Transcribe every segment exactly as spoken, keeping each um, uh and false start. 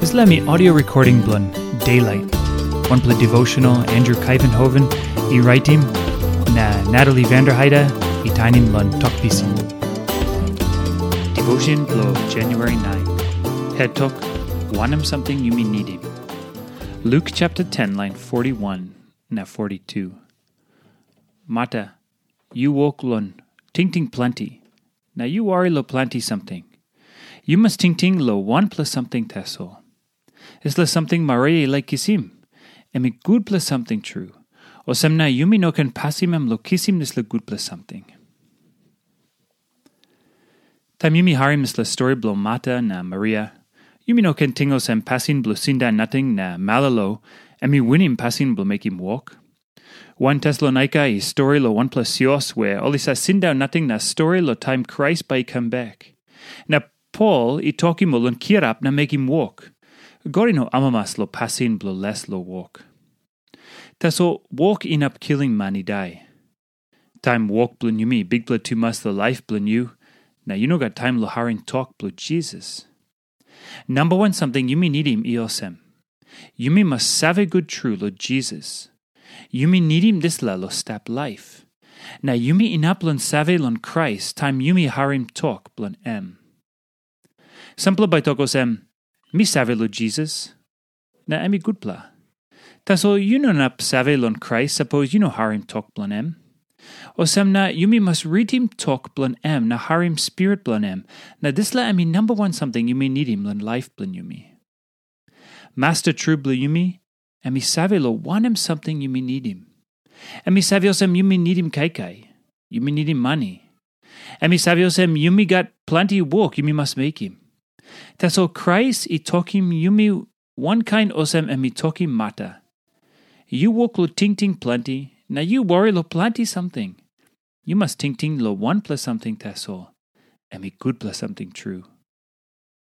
Dispela mi audio recording bilong Daylight, wanpela devotional Andrew Kaivenhoven i raitim, na Natalie Vanderheide i tainim long Tok Pisin. Devotion bilong January nine. Het tok, wanem samting yumi nidim. Luke chapter ten, line forty-one na forty-two. Marta, yu wok long tingting planti, na yu wari long planti samting. Yu mas tingting long wanpela samting tasol. Dispela samting Maria i laik kisim, em i gutpela samting tru. Olsem na yumi no ken pasim em long kisim dispela gutpela samting. Taim yumi harim dispela stori bilong Marta na Maria, yumi no ken ting olsem pasin bilong sindaun nating na malolo, em i winim pasin bilong mekim wok. Wan Tesalonaika i stori long wanpela sios we ol i save sindaun nating na stori long taim Krais bai i kam bek. Na Pol i tokim ol long kirap na mekim wok. God i no amamas long pasin bilong les long wok. Tasol wok inap kilim man i dai. Taim wok bilong yumi bikpela tumas long laip bilong yu, na yu no gat taim long harim tok bilong Jisas. Namba wan samting yumi nidim i olsem. Yumi mas save gut tru long Jisas. Yumi nidim dispela long stap laip. Na yumi inap long save long Krais taim yumi harim tok bilong em. Sampela bai tok olsem, mi save long Jisas, na em i gutpela. Tasol yu no inap save long Krais sapos yu no harim tok bilong em. Olsem na yumi mas ritim tok bilong em na harim spirit bilong em, na dispela em i namba wan samting yumi nidim long laip bilong yumi. Masta tru bilong yumi, em i save long wanem samting yumi nidim. Em i save olsem yumi nidim kaikai, yumi nidim mani. Em i save olsem yumi gat planti wok yumi mas mekim. Tasol Krais i tokim yumi wankain olsem em i tokim Marta. Yu wok long tingting planti, na yu wari long planti samting. Yu mas tingting long wanpela samting tasol. Em i gutpela samting tru.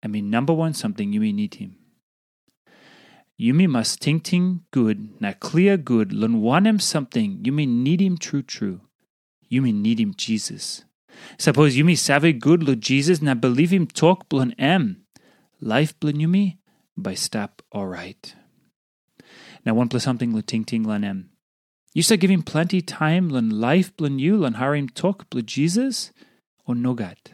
Em i namba wan samting yumi nidim. Yumi mas tingting gut na klia gut long wanem samting yumi nidim tru tru. Yumi nidim Jisas. Sapos yumi save gut long Jisas na bilipim tok bilong em, laip bilong yumi bai stap orait. Na wanpela samting long tingting long em. Yu save givim planti taim long laip bilong yu long harim tok bilong Jisas, o nogat?